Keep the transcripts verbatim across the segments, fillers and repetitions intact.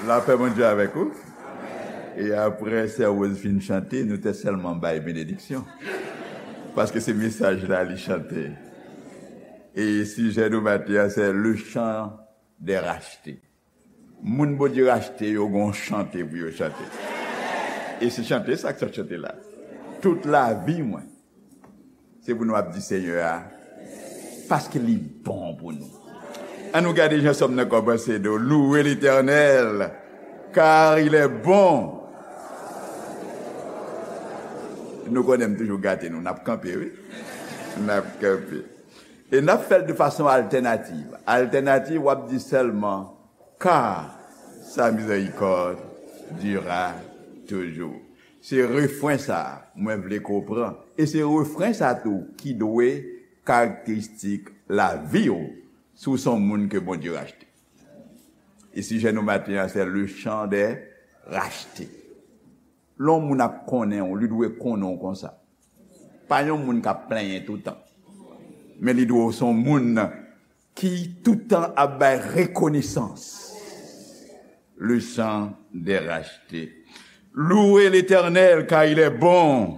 Lapè Bondye avèk ou. E apre sè Rose fin chante, nou te sèlman bay benediksyon. Paske se mesaj la li chante. E sijè nou maten an, se le chant des rachetés. Moun Bondye rachte yo gon chante pou yo chante. E se chante sa k sot chante la. Tout lavi mwen, se pou nou ap di Senyè a, paske li bon pou nou. An nou gade jan sòm nan kòmanse, nou louer l'Éternel, car il est bon. Nou konnen m toujou gate nou, n ap kanpe, wi. N ap kanpe. E n ap fè l de fason altènativ. Altènativ, w ap di sèlman, car sa miséricorde dura toujours. Se refren sa a mwen vle ke w pran. E se refren sa a tou ki dwe karakteristik lavi w si w se yon moun ke Bondye rachte. E sijè nou maten an, se le chant des rachetés. Lè yon moun ap konnen w, li dwe konnen w konsa. Pa yon moun k ap plenyen toutan. Men li dwe w se yon moun ki toutan ap bay rekonesans. Le chant des rachetés. Louez l'Éternel, car il est bon.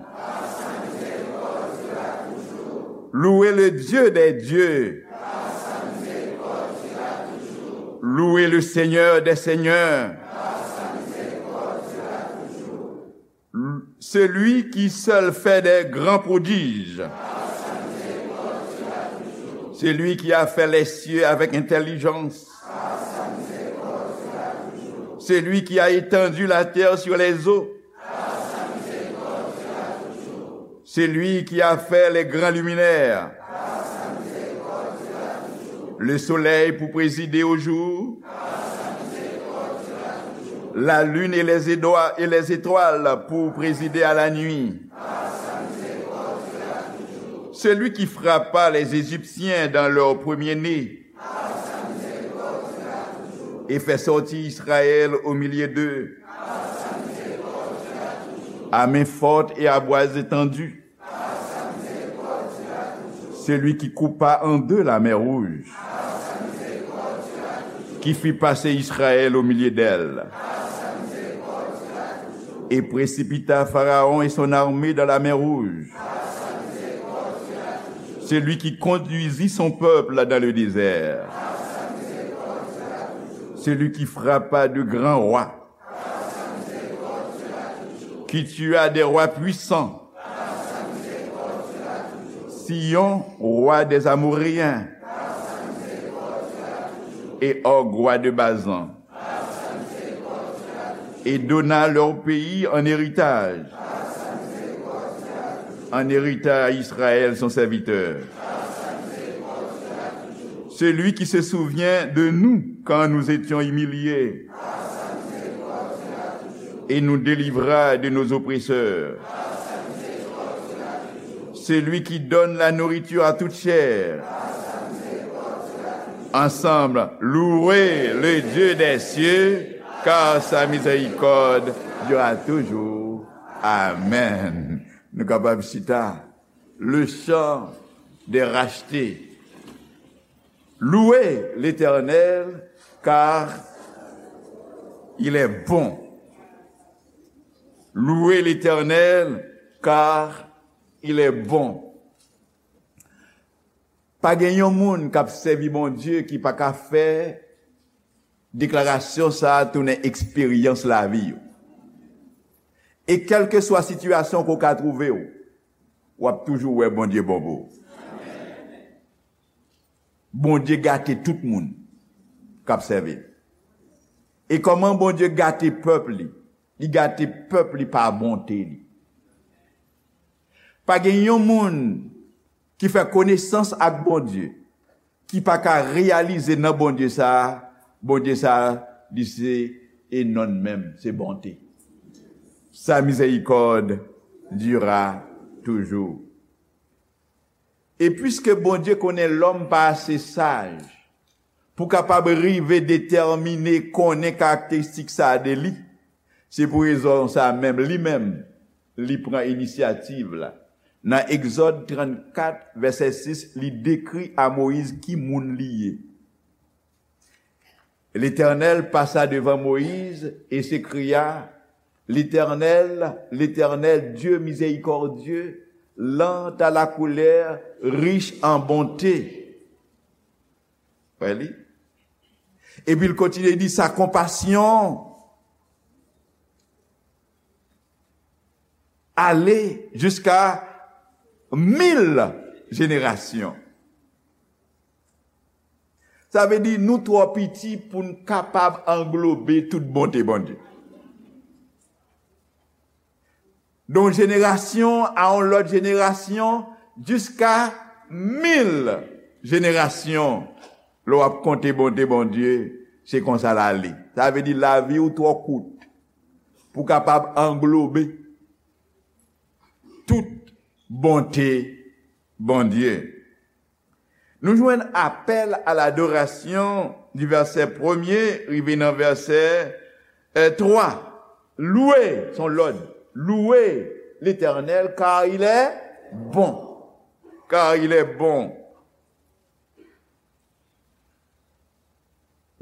Louez le Dieu des dieux. Louez le Seigneur des seigneurs. Celui qui seul fait des grands prodiges. Celui qui a fait les cieux avec intelligence. Celui qui a étendu la terre sur les eaux. Celui qui a fait les grands luminaires. Le soleil pour présider au jour. La lune et les édoi-, et les étoiles pour présider à la nuit. Celui qui frappa les Égyptiens dans leur premier-né et fait sortir Israël au milieu d'eux, à main forte et à bras étendus. Celui qui coupa en deux la mer Rouge, qui fit passer Israël au milieu d'elle, et précipita Pharaon et son armée dans la mer Rouge. Celui qui conduisit son peuple dans le désert. Celui qui frappa de grands rois, qui tua des rois puissants, Sihon, roi des Amoréens, et Og, roi de Basan, et donna leur pays en héritage, en héritage à Israël, son serviteur. Celui qui se souvient de nous quand nous étions humiliés et nous délivra de nos oppresseurs. Celui qui donne la nourriture à toute chair. Ensemble, louez le Dieu des cieux, car sa miséricorde dura toujours. Amen. Nou kapab chita. Le chant des rachetés. Louez l'Éternel, car il est bon. Louez l'Éternel, car il est bon. Pa gen yon moun k ap sèvi Bondye ki pa ka fè deklarasyon sa a tounen eksperyans lavi yo. E kèlkeswa sitiyasyon ke w ka twouve w, w ap toujou wè Bondye bon pou ou. Bondye gate tout moun k ap sèvi l. E kòman Bondye gate pèp li? Li gate pèp li pa bonte li. Pa gen yon moun ki fè konesans ak Bondye, ki pa ka reyalize nan Bondye sa a, Bondye sa a, li se e non menm, se bonte. Sa miséricorde dura toujours. E piske Bondye konnen lòm pa ase saj pou kapab rive detèmine, konnen karakteristik sa a de li, se pou rezon sa a menm, li menm, li pran inisyativ la. Nan Egzòd trannkat, vèsè sis, li dekri a Moyiz ki moun li ye. L'Éternel passa devant Moïse et s'écria, L'Éternel, l'Éternel, Dieu miséricordieux, lent à la colère, riche en bonté. Wè li? Epi l kontinye di, sa konpasyon ale jiska mil jenerasyon. Sa vle di nou twò piti pou n kapab anglobe tout bonte Bondye. De yon jenerasyon a yon lòt jenerasyon, jiska mil jenerasyon. Lè w ap konte bonte Bondye, se konsa l ale. Sa vle di lavi w twò kout pou kapab anglobe tout bonte Bondye. Nou jwenn apèl a ladorasyon di vèsè premye rive nan vèsè, eh, twa. Louez, son lòd. Louez l'Éternel, car il est bon. Car il est bon.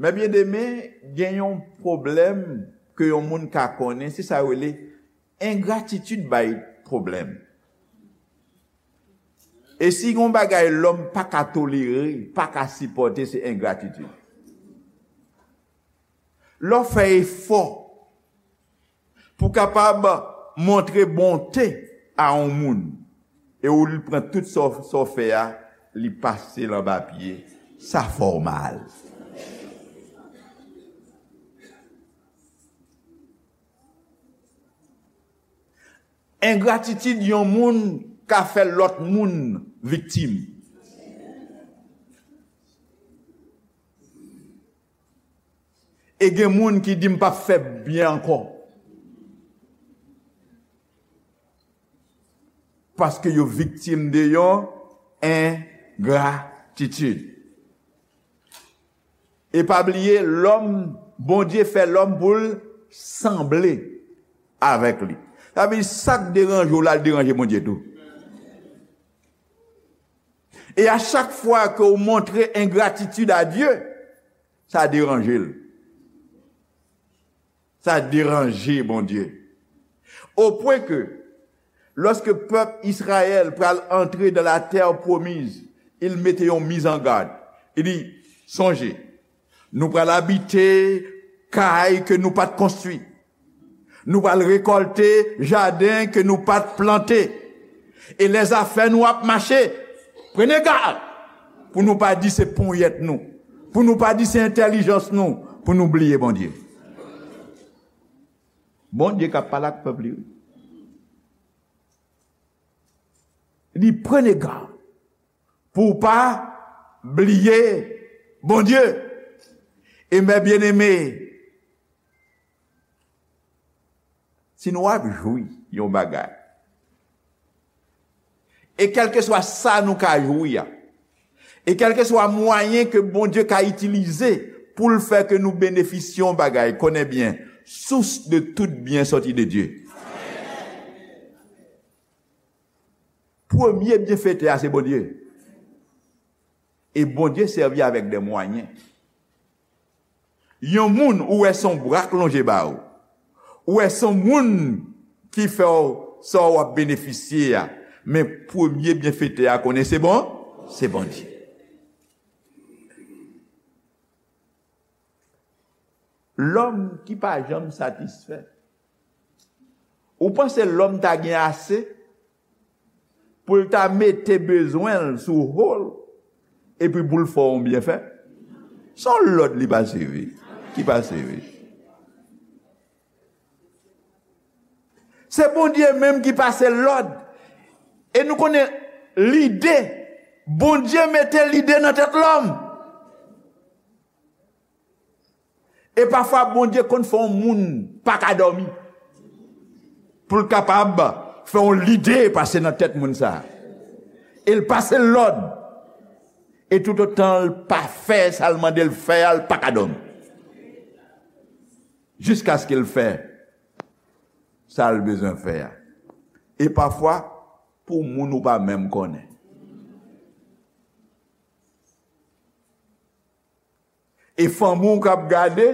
Men byeneme, gen yon pwoblèm ke yon moun ka konnen, se sa yo rele engratitid bay pwoblèm. E si gen yon bagay lòm pa ka tolere, pa ka sipòte, se engratitid. Lè w fè efò pou kapab montre bonte a yon moun, e ou li pran tout sa w, sa w fè a, li pase l anba pye, sa fè w mal. Engratitid yon moun ka fè lòt moun viktim. E gen moun ki di, "M p ap fè byen ankò." Paske yo viktim de yon engratitid. E pa bliye, lòm, Bondye fè lòm pou l sanble avèk li. Sa vle di, sa k deranje w la, l deranje Bondye tou. E a chak fwa ke w montre engratitid a Dye, sa deranje l. Sa deranje Bondye. Opwen ke, lòske pèp Izrayèl pral antre dans la terre promise, il mete yon mizangad. Li di, sonje, nou pral abite kay ke nou pa t konstwi. Nou pral rekòlte jaden ke nou pa t plante. E lè zafè nou ap mache, prenez gad pou nou pa di se ponyèt nou, pou nou pa di se entèlijans nou, pou nou bliye Bondye. Bondye k ap pale ak pèp li, wi. Li prenez gad pou w pa bliye Bondye. E mè byeneme, si nou ap jwi yon bagay, e kèlkeswa sa nou ka jwi a, e kèlkeswa mwayen ke Bondye ka itilize pou l fè ke nou benefisye yon bagay, konnen byen, source de tout bien sòti de Dieu. Premye byenfetè a se Bondye. E Bondye sèvi avèk de mwayen. Yon moun ou wè se yon bra k lonje ba ou. Ou wè se yon moun ki fè w sa w ap benefisye a. Men premye byenfetè a konnen se bon, se Bondye. Lòm ki pa janm satisfè. Ou panse lòm ta gen ase pou l ta mete bezwen l sou ho l, epi pou l fè w yon byenfè? Se yon lòd li pase, wi. Ki pase, wi. Se Bondye menm ki pase lòd. E nou konnen lide, Bondye mete lide nan tèt lòm. E pafwa, Bondye konn fè yon moun pa ka dòmi pou l kapab fè yon lide pase nan tèt moun sa a. E l pase l lòd. E toutotan l pa fè sa l mande l fè a, l pa ka dòmi. Jiskaske l fè sa l bezwen fè a. E pafwa, pou moun ou pa menm konnen. E fanmi w k ap gade,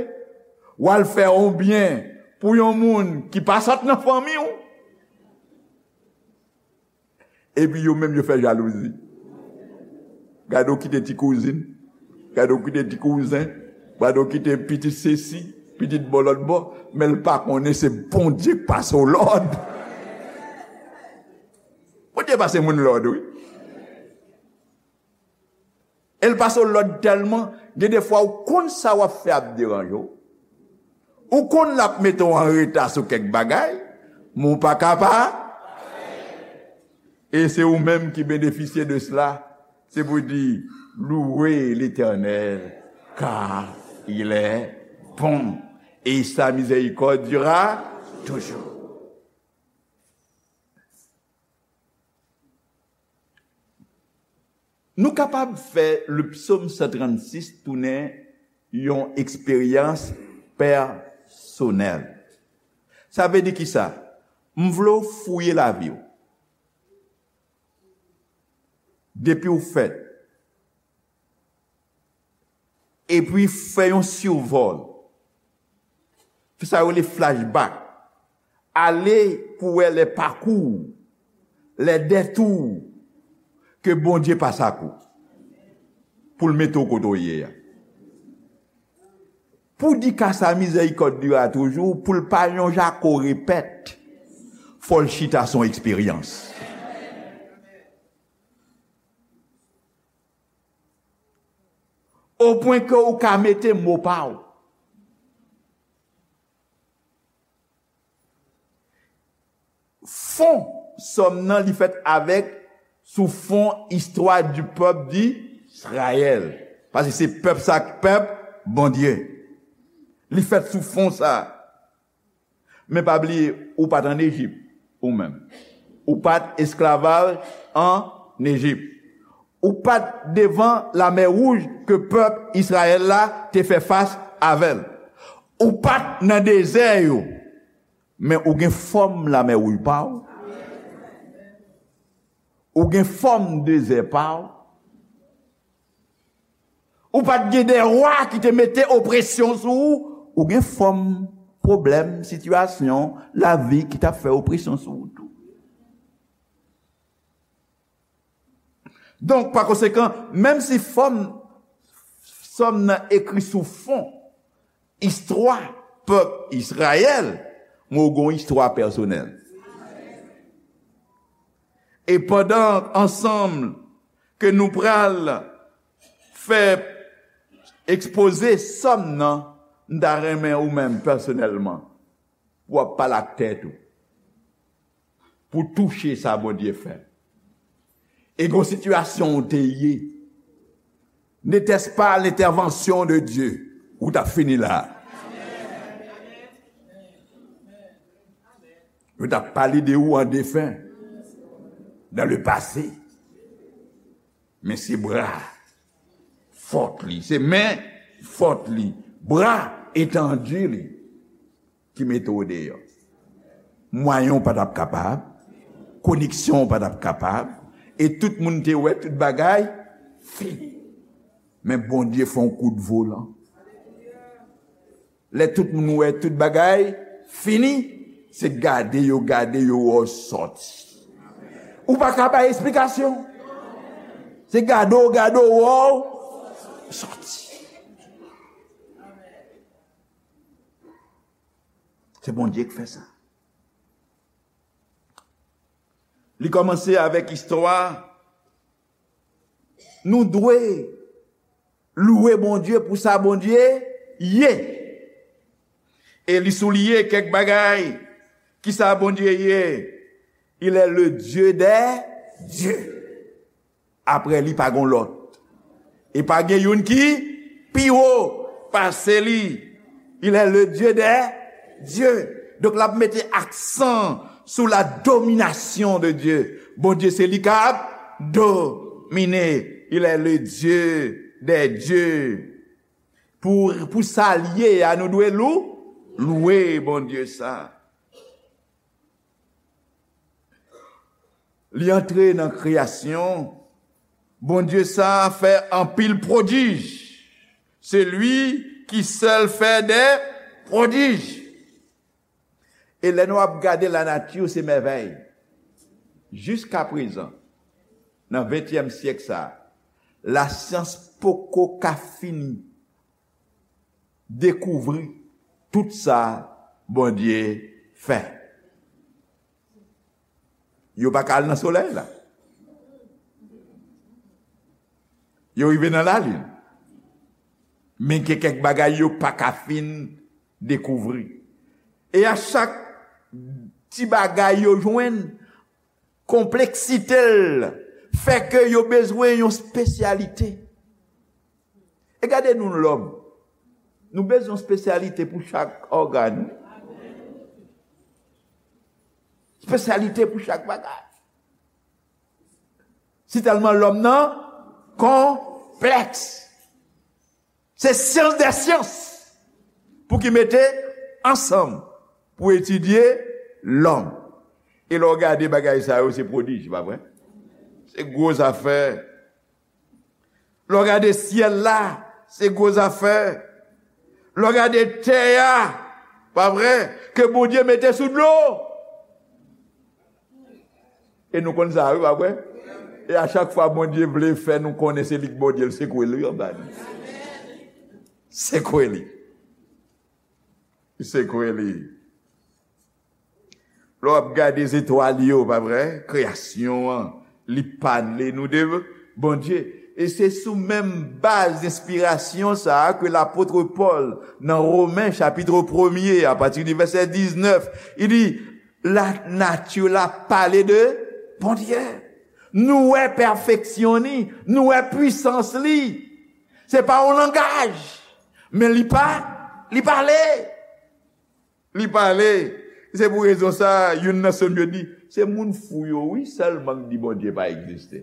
w al fè yon byen pou yon moun ki pa sot nan fanmi w. Epi yo menm yo fè jalouzi. Gade w kite ti kouzin, gade w kite ti kouzen, gade w kite pitit sesi, pitit bò lòt bò, men l pa konnen se Bondye k pase w lòd. Bondye pase moun lòd, wi. E l pase w lòd tèlman, gen defwa ou konn sa w ap fè ap deranje w. Ou konn l ap mete w an reta sou kèk bagay, men ou pa ka pa. E se ou menm ki benefisye de cela. Se pou di, louez l'Éternel, car il est bon, et sa miséricorde durera toujours. Nou kapab fè le psaume cent trente-six tounen yon eksperyans pèsonèl. Sa vle di kisa? M vle w fouye lavi w. Depi w fèt. Epi fè yon sivòl. Fè sa yo rele flashback. Ale pou wè lè pakou, lè dètou ke Bondye pase ak ou pou l mete w kote w ye a. Pou di ka sa mizèrikòd dira toujou, pou l pa yon jako repèt, fò l chita son eksperyans. O pwen ke ou ka mete mo pa w. Fon sòm nan li fèt avèk sou fon istwa di pèp di Izrayèl. Paske se pèp sa k pèp Bondye. Li fèt sou fon sa. Men pa bliye, ou pa t ann Ejip, ou menm. Ou pa t esklavaj ann Ejip. Ou pa t devan Lamè Wouj ke pèp Izrayèl la te fè fas avè l. Ou pa t nan dezè yo, men ou gen fòm Lamè Wouj pa w. Ou gen fòm dezè pa w. Ou pa t gen de wa ki te mete opresyon sou ou. Ou gen fòm pwoblèm, sitiyasyon, lavi ki t ap fè opresyon sou ou tou. Donk, pa konsekan, menm si fòm sòm nan ekri sou fon istwa pèp Izrayèl, men ou gen yon istwa pèsonèl. E pandan ansanm ke nou pral fè ekspoze sòm nan, m ta renmen ou menm pèsonèlman, pou w ap pale ak tèt ou, pou touche sa Bondye fè. E gon sitiyasyon ou te ye, n'était-ce pas l'intervention de Dieu, ou t ap fini la. Yo t ap pale de ou an defen, dans le passé. Men se bra fòt li, se men fòt li, bra etandi li ki mete w deyò. Mwayen w pa t ap kapab, koneksyon w pa t ap kapab, e tout moun te wè tout bagay fini. Men Bondye fè yon kout volan. Lè tout moun wè tout bagay fini, se gade yo gade yo wè w sòti. Ou pa ka bay esplikasyon. Se gade w gade w wè w sòti. Se Bondye k fè sa. Li kòmanse avèk istwa. Nou dwe louwe Bondye pou sa Bondye ye. E li souliye kèk bagay. Kisa Bondye ye? Il est le Dieu des dieux. Apre li pa gon lòt. E pa gen youn ki pi wo pase li. Il est le Dieu des dieux. Donk l ap mete aksan sou la domination de Dieu. Bondye se li k ap domine. Il est le Dieu des dieux. Pou, pou sa l ye a, nou dwe lou, louwe Bondye sa. Li antre nan kreyasyon. Bondye sa a fè anpil pwodij. Celui qui seul fait des prodiges. E lè nou ap gade lanati, se mèvèy. Jiska prezan, nan ventyèm syèk sa a, lasyans poko ka fin dekouvri tout sa Bondye fè. Yo pa ka al nan solèy la. Yo rive nan lalin. Men gen kèk bagay yo pa ka fin dekouvri. E a chak ti bagay yo jwenn, konpleksite l fè ke yo bezwen yon espesyalite. E gade nou lòm. Nou bezwen yon espesyalite pou chak ògàn. Espesyalite pou chak bagay. Si tèlman lòm nan konplèks. Se syans dè syans pou ki mete ansanm pou etidye lòm. E lè w gade bagay sa yo, se pwodij, pa vre? Se gwo zafè. Lè w gade syèl la, se gwo zafè. Lè w gade tè a, pa vre, ke Bondye mete sou dlo. E nou konn sa, wi, pa vre? E a chak fwa Bondye vle fè nou konnen se li k Bondye, l sekwe li anba nou. Sekwe li. Li sekwe li. Lè w ap gade zetwal yo, pa vre? Kreyasyon an, li pale nou de Bondye. E se sou menm baz enspirasyon sa a ke lapot Pòl, nan Women chapit premye, apati de vèsè diznèf, li di, lanati la pale de Bondye. Nou wè pèfeksyon li, nou wè pwisans li. Se pa yon langaj, men li pa, li pale. Li pale. Se pou rezon sa a, youn nan sòm yo di, se moun fou yo, wi, sèlman k di Bondye pa egziste.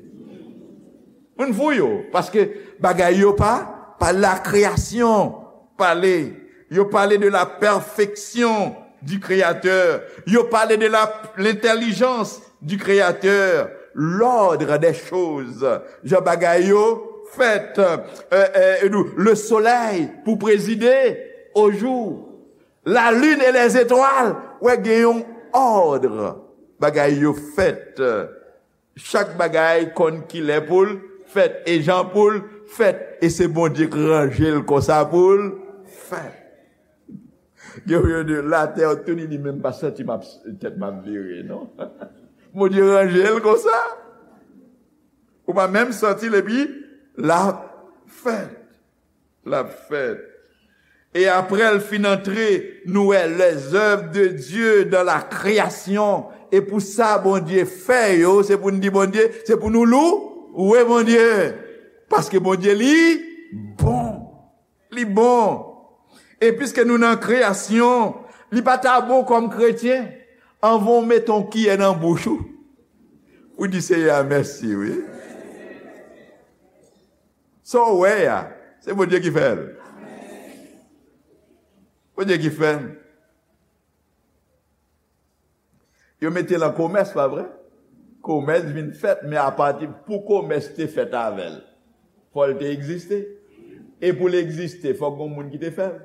Moun fou yo, paske bagay yo pa, pa la kreyasyon pale. Yo pale de la perfection du Créateur. Yo pale de la, l'intelligence du Créateur. L'ordre des choses. Jan bagay yo fèt. Euh, euh, le soleil pou prezide au jour. La lune et les étoiles, wè gen yon òd. Bagay yo fèt. Chak bagay konn kilè pou l fèt e jan pou l fèt. E se Bondye k ranje l konsa pou l fèt. Gen yon de latè tou li di menm pa santi m ap, tèt m ap vire, non. Bondye ranje l konsa. Ou pa menm santi l epi l ap fèt. L ap fèt. E apre l fin antre, nou wè les œuvres de Dieu dans la création. E pou sa Bondye fè yo, se pou n di Bondye, se pou nou lou, louwe Bondye. Paske Bondye li bon. Li bon. E piske nou nan kreyasyon, li pa ta bon kòm kretyen, anvan w mete yon kiyè nan bouch ou, ou di Seyè a mèsi, wi. Sa w wè a, se Bondye ki fè l. Bondye ki fè l. Yo mete l an komès, pa vre? Komès vin fèt, men apati pou komès te fèt avè l, fò l te egziste. E pou l egziste, fòk gon moun ki te fè l.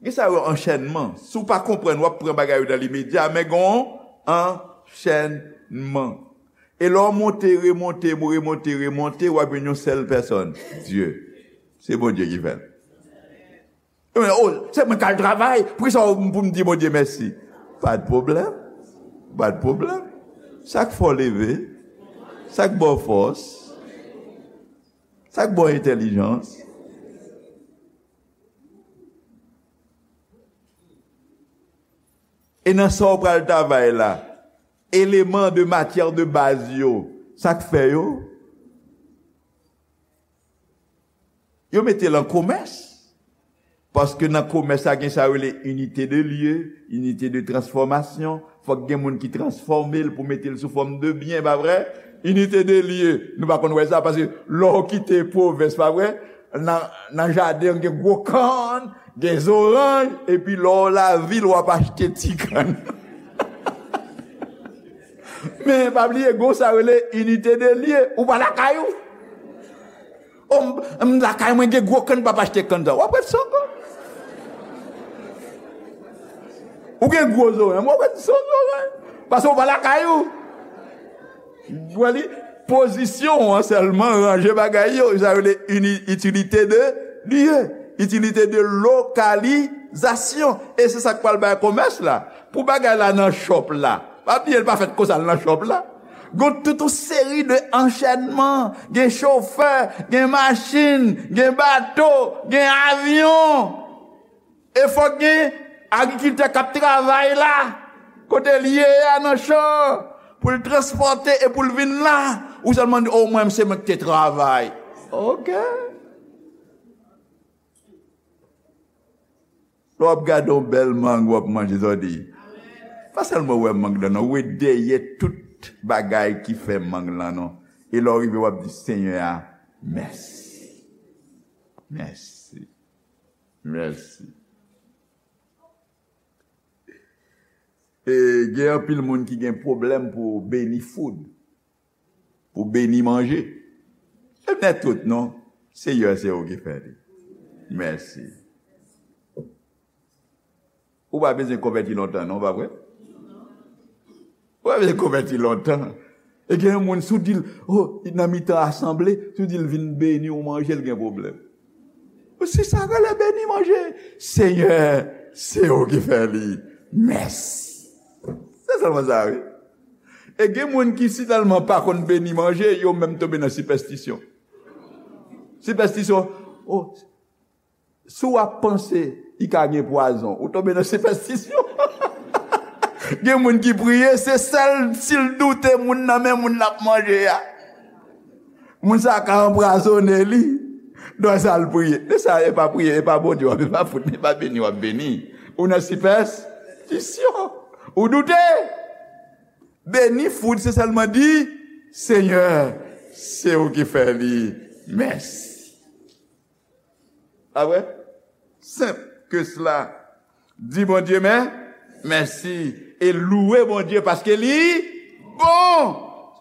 Gen sa yo anchènman. Si w pa konprann, w ap pran bagay yo nan limedya, men gen yon anchènman. E lè w monte, remonte, remonte, remonte, w ap jwenn yon sèl pèsòn, Dye. Se Bondye ki fè l. Yo mande, "Oh, se mwen k al travay, poukisa w pou m di Bondye mèsi?" Pa de pwoblèm. Pa de pwoblèm. Sa k fè w leve, sa k ba w fòs, sa k ba w entèlijans. E nan sa w pral travay la, eleman de matyè de baz yo, sa k fè yo? Yo mete l an komès. Paske nan komès la, gen sa yo rele inite de lye, inite de transfòmasyon. Fòk gen moun ki transfòme l pou mete l sou fòm de byen, pa vre? Inite de lye. Nou pa konn wè sa, paske lè w kite pwovens, pa vre? Nan, nan jaden, gen gwo kann, gen zoranj, epi lè w lavil, w ap achte ti kann. Men, pa bliye, gon sa rele inite de lye. Ou pa lakay ou. m, m lakay mwen gen gwo kann, m p ap achte kann sa. W ap ret san kann. Ou gen gwo zorèy, w ap ret san zorèy. Paske w pa lakay ou. Ou wè li, pozisyon an sèlman ranje bagay yo. Sa yo rele ini-, itilite de lye, itilite de lokalizasyon. E se sa k pral bay komès la. Pou bagay la nan shop la, pa bliye l pa fèt konsa l nan shop la. Gon tout yon seri de anchènman. Gen chofè, gen machin, gen bato, gen avyon. E fòk gen agrikiltè k ap travay la, kote l ye a nan chan, pou l transpòte e pou l vin la. Ou sèlman di, "O, mwen, se mwen ki te travay." Oke. Lè w ap gade yon bèl mang, w ap manje, sa w di, pa sèlman wè mang lan, non, wè dèyè tout bagay ki fè mang lan, non. E lè w rive, w ap di, "Senyè a, mèsi. Mèsi." Mèsi. E gen anpil moun ki gen pwoblèm pou beni food, pou beni manje. E nèt tout, non. Seyè, se ou ki fè li. Mèsi. Ou pa bezwen konvèti lontan, non, pa vre? Ou pa bezwen konvèti lontan. E gen yon moun, si w di l, o, nan mitan asanble, si w di l vin beni w manje, l gen pwoblèm. Se sa k rele beni manje. Senyè, se ou ki fè li. Mèsi. Se sèlman sa, wi. E gen moun ki si tèlman pa konn beni manje, yo menm tonbe nan sipèstisyon. Sipèstisyon, o, si w ap panse li ka gen pwazon, ou tonbe nan sipèstisyon. Gen moun ki priye, se sèl si l doute moun nan, men moun l ap manje a. Moun sa a ka anpwazonnen li. Donk sa l priye. Men sa, e pa priye, e pa Bondye w ap, e pa fout, e pa beni w ap beni. Ou nan sipèstisyon. Ou doute. Beni food, se sèlman di, Senyè, se ou ki fè li. Mèsi. Pa vre? Senp ke sela. Di Bondye mè, mèsi e louwe Bondye paske li bon.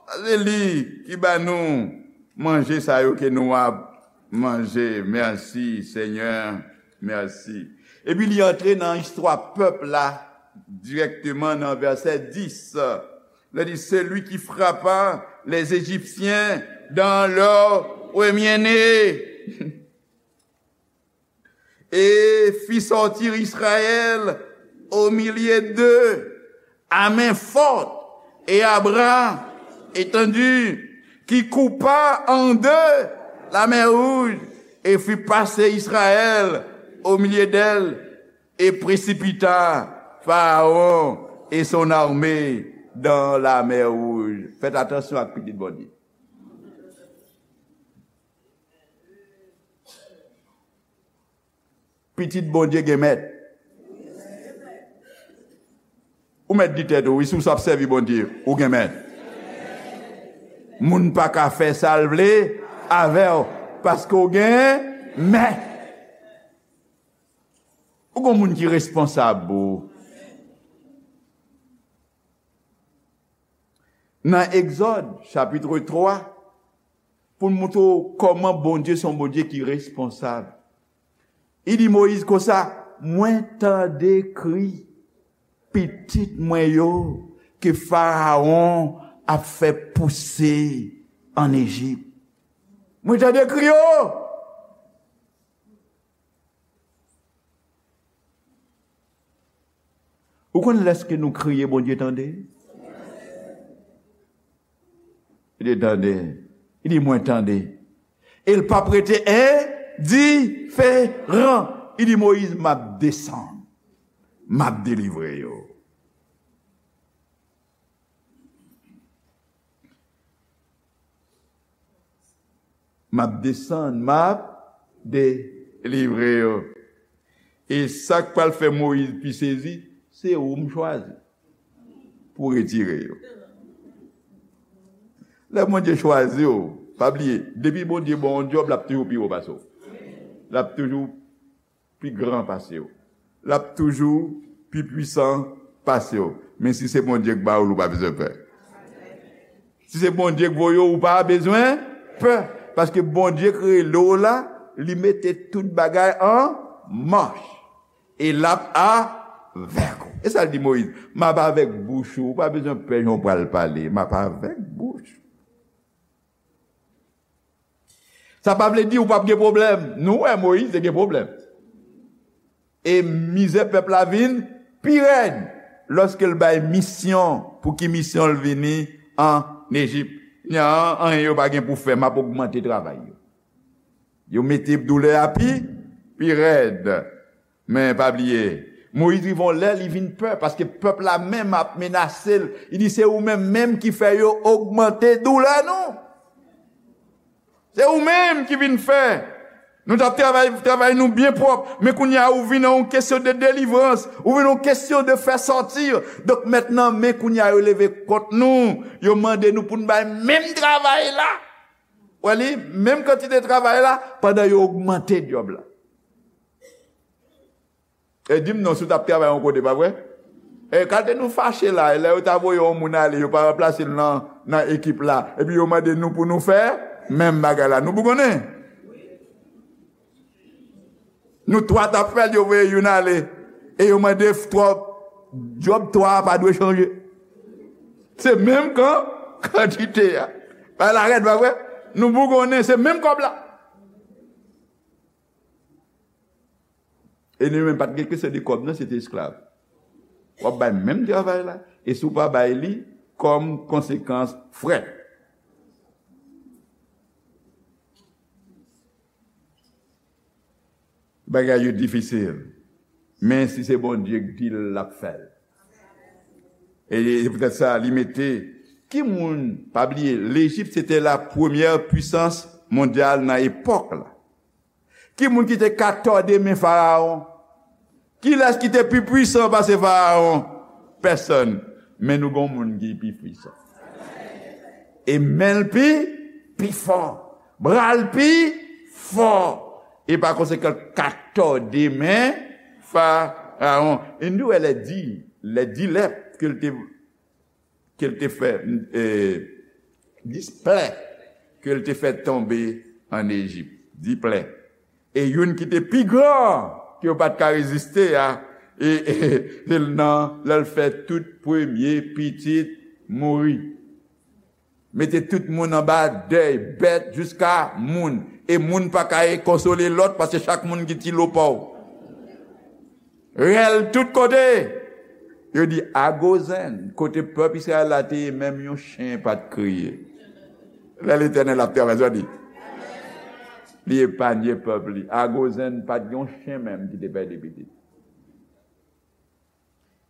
Paske li ki ba nou manje sa yo ke nou ap manje. Mèsi, Senyè, mèsi. Epi li antre nan istwa pèp la dirèkteman nan vèsè dis. Li di, celui qui frappa les Égyptiens dans leur premier-né et fit sortir Israël au milieu d'eux à main forte et à bras étendu, qui coupa en deux la mer Rouge et fit passer Israël au milieu d'elle et précipita Pharaon et son armée dans la mer Rouge. Faites attention ak pitit Bondye. Pitit Bondye gen mèt. Ou mèt di tèt ou, wi, si w ap sèvi Bondye, ou gen mèt. Moun pa ka fè sa l vle avè w, paske w gen mèt. Ou gon moun ki responsab pou ou. Nan Egzòd, chapit twa, pou l montre w kòman Bondye se yon Bondye ki responsab. Li di Moyiz konsa, mwen tande kri pitit mwen yo ke Farawon ap fè pouse ann Ejip. Mwen tande kri yo. Ou konn lèske nou kriye, Bondye tande? Li tande. Li di, mwen tande. E l p ap rete endiferan. Li di, Moyiz, m ap desann. M ap delivre yo. M ap desann, m ap delivre yo. E sa k pral fè Moyiz pi sezi, se ou m chwazi pou retire yo. Lè Bondye chwazi w, pa bliye, depi Bondye ba w yon djòb, l ap toujou pi wo pase w. L ap toujou pi gran pase w. L ap toujou pi pwisan pase w. Men si se Bondye k ba w l, ou pa bezwen pè. Si se Bondye k voye w, ou pa bezwen pè. Paske Bondye kreye dlo la, li mete tout bagay an mach. E l ap avèk ou. E sa l di Moyiz, "M ap avèk bouch ou, ou pa bezwen pè jan w pral pale, m ap avèk bouch ou." Sa pa vle di ou p ap gen pwoblèm. Nou wè Moyiz te gen pwoblèm. E mizè pèp la vin pi rèd lòske l bay misyon, pou ki misyon l vini ann Ejip. Li di, "An, anyen yo pa gen pou fè, m ap ogmante travay yo." Yo mete doulè a pi, pi rèd. Men pa bliye, Moyiz rive yon lè, li vin pè, paske pèp la menm ap menase l. Li di, "Se ou menm menm ki fè yo ogmante doulè nou. Se ou menm ki vin fè. Nou t ap travay, travay nou byen pwòp, men kounye a ou vin nan yon kesyon de delivrans, ou vin nan yon kesyon de fè sòti. Donk mentnan, men kounye a yo leve kont nou, yo mande nou pou n bay menm travay la." Wè li, menm kantite travay la, pandan yo ogmante djòb la. E di m non, si w t ap travay yon kote, pa vre? E kalite nou fache la, e lè yo ta voye yon moun ale, yo pa ranplase l nan, nan ekip la, epi yo mande nou pou nou fè menm bagay la. Nou bougonnen? Nou twa t ap fè l, yo voye youn ale. E yo mande f-, twa, djòb twa a pa dwe chanje. Se menm kan, kantite a. Bagay la rèd, pa vre? Nou bougonnen, se menm kòb la. E nou menm pa t gen kesyon de kòb, non, se te esklav. W ap bay menm travay la, e si w pa bay li, kòm konsekans, frè. Bagay yo difisil. Men si se Bondye k di l, l ap fè l. E se poutèt sa, li mete, ki moun, pa bliye, Lejip se te la premyè pwisans mondyal nan epòk la. Ki moun ki te ka tòde men Farawon? Kilès ki te pi pwisan pase Farawon? Pèsòn. Men nou gon moun ki pi pwisan. E men l pi, pi fò. Bra l pi fò. E pa konsekan, l ka tòde men Farawon. E nou wè lè di, lè di lè ke l te ke l te fè, e, dis plè ke l te fè tonbe ann Ejip. Dis plè. E youn ki te pi gran, ke yo pa t ka reziste a, e, e, se nan lè l fè tout premye pitit mouri. Mete tout moun anba dèy, bèt jiska moun. E moun pa ka konsole lòt, paske chak moun gen ti lo pa w. Rèl tout kote. Yo di, a Gozenn, kote pèp Izrayèl la te ye, menm yon chen pa t kriye. Lè Letènèl ap travay, sa di. Li epanye pèp li. A Gozenn, pa t gen yon chen menm ki te pèdi pitit.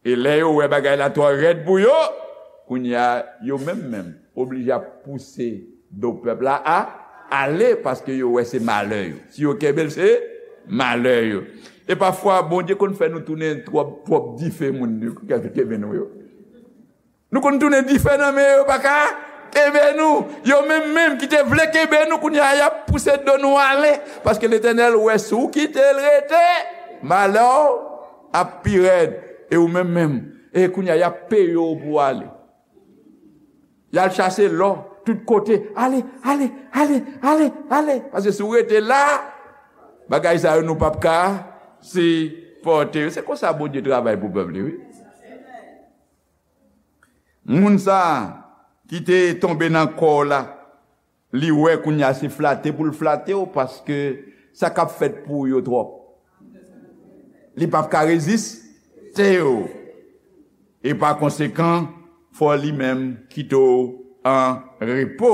E lè yo wè bagay la twò rèd pou yo, kounye a, yo menm menm oblije ap pouse do pèp la a ale, paske yo wè se malè yo. Si yo kenbe l, se malè yo. E pafwa, Bondye konn fè nou tounen twòp, twòp dife moun nou kenbe nou yo. Nou konn tounen dife nan men yo, yo pa ka kenbe nou. Yo menm menm ki te vle kenbe nou, kounye a, y ap pouse do nou ale. Paske Letènèl wè si w kite l rete, malè w ap pi rèd. E ou menm menm, e kounye a, y ap peye w pou w ale. Y al chache lò tout kote. Ale, ale, ale, ale, ale. Paske si w rete la, bagay sa yo nou p ap ka sipòte yo. Se konsa Bondye travay pou pèp li, wi. Moun sa a ki te tonbe nan kò w la, li wè kounye a se flate pou l flate w, paske sa k ap fèt pou w yo twòp. Li p ap ka reziste w. E pa konsekan, fò li menm kite w an repo,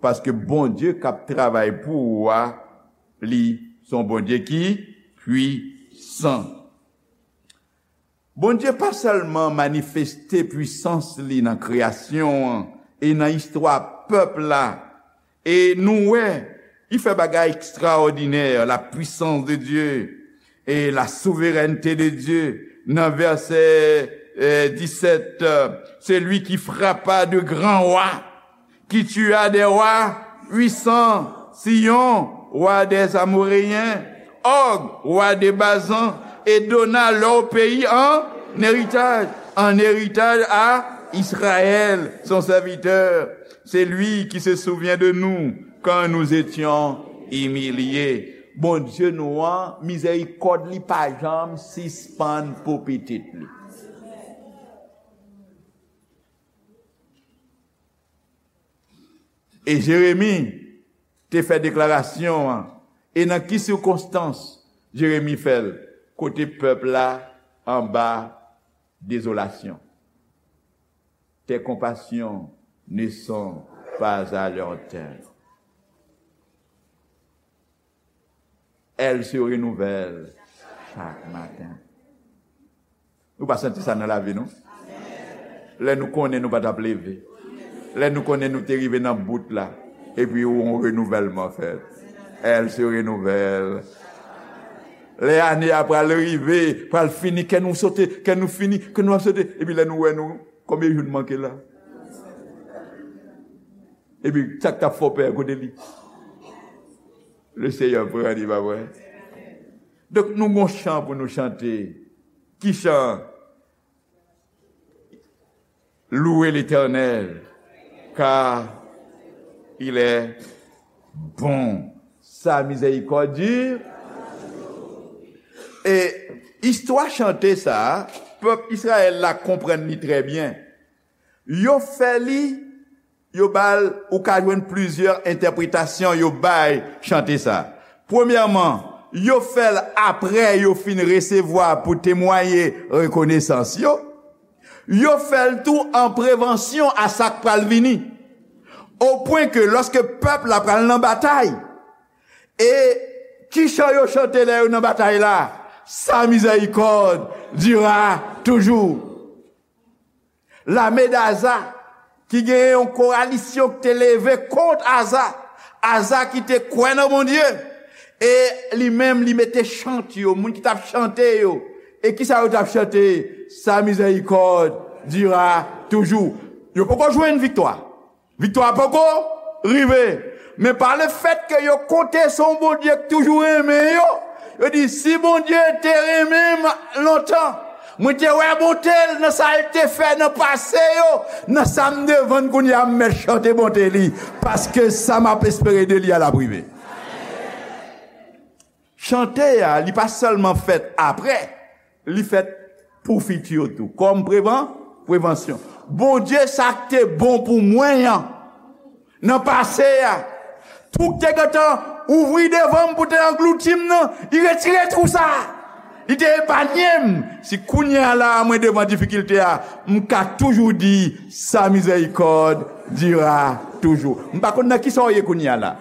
paske Bondye k ap travay pou ou a, li se yon Bondye ki pwisan. Bondye pa sèlman manifeste pwisans li nan kreyasyon an e nan istwa pèp la, e nou wè, li fè bagay ekstraòdinè, la puissance de Dieu et la souveraineté de Dieu. Nan vèsè, eh, disèt, euh, celui qui frappa de grands rois, qui tua des rois puissants, Sihon, roi des Amoréens, Og, roi de Bazan, et donna leur pays en héritage, en héritage à Israël, son serviteur. C'est lui qui se souvient de nous Quand nous étions humiliés. Bondye nou an, mizèrikòd li pa janm sispann pou pitit li. E Jeremi te fè deklarasyon an. E nan ki sikonstans Jeremi fè l? Kote pèp la anba dezolasyon. Tes compassions ne sont pas à leur terme. Elles se renouvellent chaque matin. Nou pa santi sa nan lavi nou? Lè nou konnen nou pa t ap leve. Lè nou konnen nou te rive nan bout la. Epi yon renouvèlman fèt. Elles se renouvellent. Lè ane a pral rive, pral fini, kè nou sote, kè nou fini, kè nou ap sote. Epi lè nou wè nou, konbyen jou n manke la? Epi sa k t ap fè w pè kote li? Le Seyè pran li, pa vre? Donk, nou gon chan pou nou chante. Ki chan? Louez l'Éternel, car il est bon. Sa mizèrikòd di. E istwa chante sa a, pèp Izrayèl la konprann li trè byen. Yo fè li, yo ba l, ou ka jwenn plizyè entèpretasyon yo bay chante sa. Premyèman, yo fè l apre yo fin resevwa pou temwaye rekonesans yo. Yo fè l tou an prevansyon a sa k pral vini. Opwen ke lòske pèp la pral nan batay, e ki chan yo chante lè yo nan batay la? Sa miséricorde durera toujours. Lame Aza, ki genyen yon kowalisyon ki te leve kont Aza. Aza ki te kwè nan Bondye. E li menm, li mete chant yo, moun ki t ap chante yo. E kisa yo t ap chante? Sa miséricorde durera toujours. Yo poko jwenn viktwa. Viktwa poko rive. Men pa lefèt ke yo konte sou yon Bondye k toujou renmen yo, yo di, "Si Bondye te renmen m lontan, mwen te wè bonte l nan sa l te fè nan pase yo, nan sa m devann kounye a, m mèt chante bonte li, paske sa m ap espere de li a l ap rive." Chante a, li pa sèlman fèt apre, li fèt pou fiti yo tou, kòm prevan-, prevansyon. Bondye, sa k te bon pou mwen an, nan pase a, twou k te gentan ouvri devan m pou te anglouti m nan, li retire twou sa a. Li te epanye m. Si kounye a la a, mwen devan difikilte a, m ka toujou di, sa miséricorde durera toujours. M pa konn nan kisa w ye kounye a la.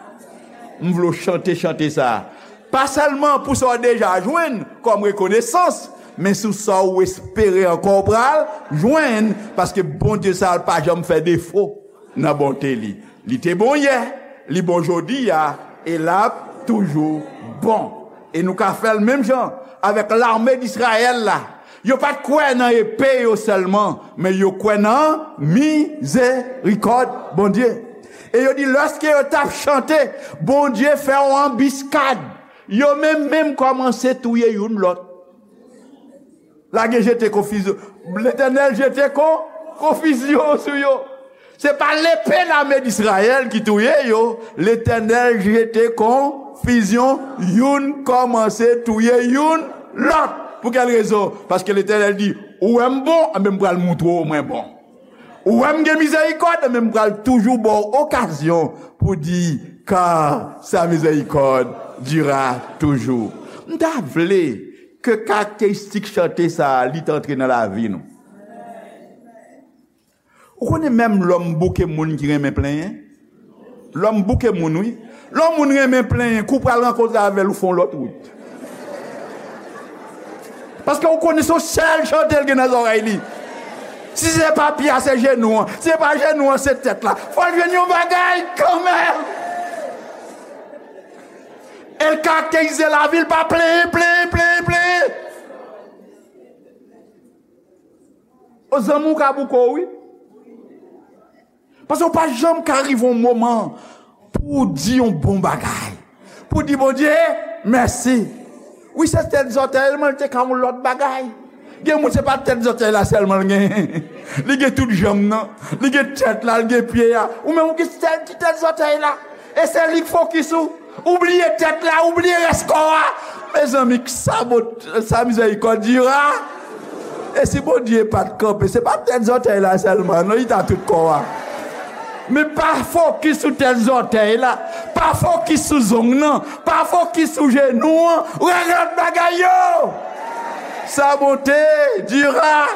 M vle w chante chante sa a. Pa sèlman pou sa w deja jwenn kòm rekonesans, men sou sa w espere ankò w pral jwenn, paske Bondye sa a pa janm fè defo nan bonte li. Li te bon yè, li bon jodi a, e l ap toujou bon. E nou ka fè l menm jan avèk lame Dizrayèl la. Yo pa t kwè nan epe yo sèlman, men yo kwè nan mizerikòd Bondye. E yo di, lòske yo t ap chante, Bondye fè yon anbiskad. Yo menm menm kòmanse touye youn lòt. Lage jete konfizyon. Letènèl jete kon, konfizyon sou yo. Se pa lepe lame Dizrayèl ki touye yo. Letènèl jete konfizyon, youn kòmanse touye youn lòt. Pou kèl rezon? Paske Letènèl di, ou wè m bon, anben m pral moutre w mwen bon. Ou wè m gen mizerikòd, men m pral toujou ba w okazyon pou di, car sa miséricorde durera toujours. M ta vle ke karakteristik chante sa a, li t antre nan lavi nou. Ou konnen menm lòm bouke moun ki renmen plenyen? Lòm bouke moun, wi. Lè yon moun renmen plenyen, kou pral rankontre avè l, ou fè yon lòt wout. Paske ou konnen se yon sèl chante l gen nan zòrèy li. Si se pa pye a, se jenou an. Si se pa jenou an, se tèt la. Fò l jwenn yon bagay kanmenm. E l karakterize lavi l pa plenyen, plenyen, plenyen, plenyen. O zanmi, w ka bouke w, wi. Paske w pa janm ka rive yon moman pou w di yon bon bagay. Pou w di Bondye mèsi. Wi, se tèt zòtèy, men l te ka yon lòt bagay. Gen moun, se pa tèt zòtèy la sèlman l genyen. Li gen tout janm nan. Li gen tèt la, li gen pye a. Ou menm, ou gen sèl ti tèt zòtèy la. E se li k fokis ou. Ou bliye tèt la, ou bliye rès kò a. Mezanmi, sa bon, sa mizèrikòd dira. E si Bondye pa t kanpe, se pa tèt zòtèy la sèlman, non, li ta tout kò a. Men pa fokis sou tèt zòtèy la. Pa fokis sou zong nan. Pa fokis sou jenou an. Regle lòt bagay yo. Sa bonte dira.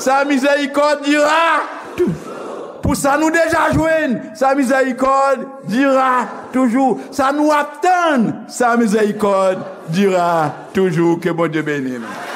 Sa mizèrikòd dira. Pou sa nou deja jwenn, sa mizèrikòd dira toujou. Sa nou ap tann, sa mizèrikòd dira toujou. Ke Bondye beni nou.